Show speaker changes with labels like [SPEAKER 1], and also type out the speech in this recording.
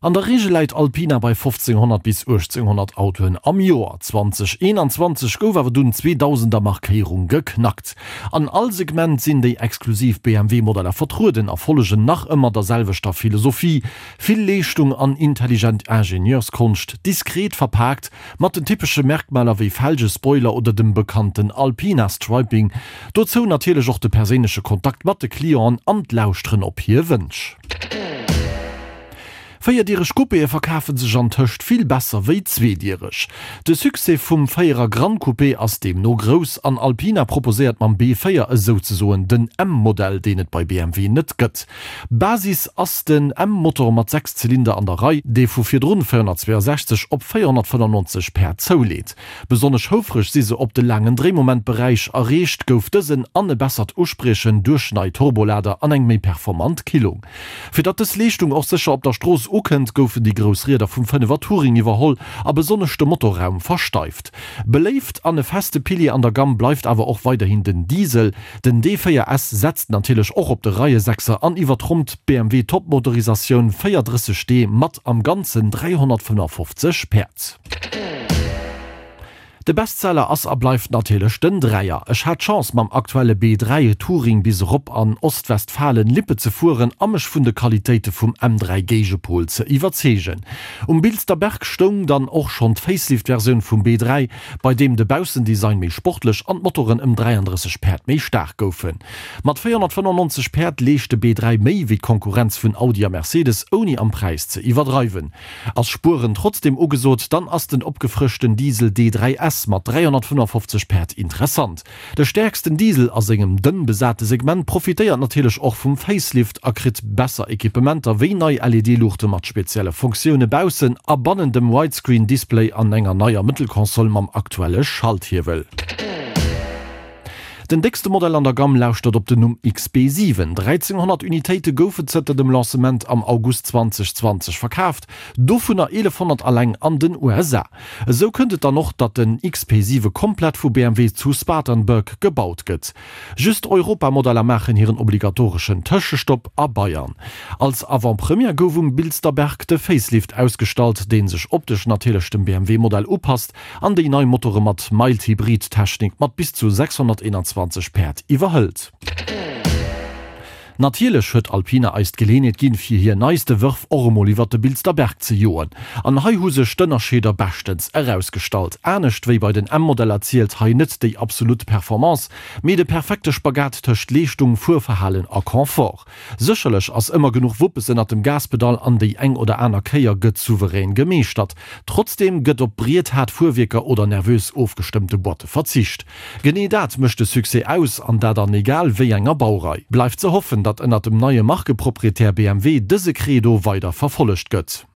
[SPEAKER 1] An der Reegel läit Alpina bei 1500 bis 1800 Autoen am Joer. 2021 gouf awer dunn d'Zweedausender Markéierung geknackt. An all Segment sinn déi exklusiv BMW-Modeller vertrueden a follegen nach ëmmer der selwechter Philosophie, Vill Leeschtung an intelligent Ingenieurskonscht, diskret verpaakt, mat den typesche Merkmaler wéi Felge, Spoiler oder dem bekannten Alpina-Striping. Dozou natierlech och de perséinleche Kontakt mat de Clienten an d'Lauschteren op hir Wënsch. Véierdiereg Coupéë verkafe sech antëscht vill besser wéi zweediereg. De Succès vum Véierer Gran Coupé ass deemno grouss an Alpina proposéiert mam B4 esouzesoen den M-Modell, deen et bei BMW net gëtt. Basis ass den M-Motor mat 6 Zylinder an der Rei, dee vu virdrun 462 op 495 Päerd zouleet. Besonnesch houfreg si se op de laangen Dréimomentberäich, erreecht gouf dësen an e bessert Uspriechen duerch nei Turbolader an eng méi performant Killung. Fir datt dës Leeschtung och sécher op der Strooss ukënnt, goufen déi grouss Rieder vum Fënnefer Touring iwwerholl a besonnesch de Motorraum versteift. Beléift an e feste Pilier an der Gamm bleift awer och weiderhin den Diesel. Den D4 S setzt natierlech och op de Reiesechser an iwwertrompt d'BMW Topmotorisatioun 430 d mat am Ganzen 355 Päerd. De Bestseller ass a bleift natierlech den Dräier. Ech hat d'Chance mam aktuelle B3 Touring bis erop an Ostwestfalen-Lippe ze fueren a mech vun de Qualitéite vum M3 Géigepol ze iwwerzeegen. Um Bilster Berg stoung dann och schonn d'Facelift-Versioun vum B3, bei deem de Baussendesign méi sportlech an d'Motoren ëm 33 Päerd méi staark goufen. Mat 495 Päerd leescht de B3 méi wéi d'Konkurrenz vun Audi a Mercedes, ouni am Präis ze iwwerdreiwen. Ass Spueren trotzdem ugesot, dann ass den opgefrëschten Diesel D3 S mat 355 Päerd interessant. De stäerksten Diesel a sengem dënn besate Segment profitéiert natierlech och vum Facelift a kritt besser Equipementer wéi nei LED-Luuchte mat spezielle Funktioune baussen a bannen dem Widescreen-Display an enger neier Mëttelkonsole mam aktuelle Schalthiewel. Den déckste Modell an der Gamm lauschtert op den Numm XB7. 1.300 Unitéite goufe zënter dem Lancement am August 2020 verkaaft, dovunner 1.100 alleng an den USA. Esou kënnt et dann och, datt den XP7 komplett vu BMW zu Spartanburg gebaut gëtt. Just Europamodeller maachen hiren obligatoreschen Tëschestopp a Bayern. Als Avant-Première gouf um Bilsterberg de Facelift ausgestallt, dee sech optesch natierlech dem BMW-Modell upasst, An déi nei Motore mat Mild-Hybrid-Technik mat bis zu 621 Päerd iwwerhëlt. Natierlech huet Alpina eis d'Geleenheet ginn, fir hir neiste Wërf och emol iwwert de Bilster Berg ze joen. An hei hu sech d'Ënnerscheeder beschtens erausgestallt. Anescht wéi bei den M-Modeller zielt hei net déi absolut Performance, mee de perfekte Spagat tëscht Leeschtung, Fuerverhalen a Confort. Sécherlech ass ëmmer genuch Wuppes ënnert dem Gaspedall an déi eng oder aner Kéier gëtt souverän gemeeschtert. Trotzdeem gëtt op briethaart Fuerwierker oder nervös ofgestëmmte Boîte verzicht. Genee dat mécht de Succès aus, an dat an egal wéi enger Baurei. Bleift ze hoffen, datt ënnert dem neie Markeproprietär BMW dëse Credo weider verfollegt gëtt.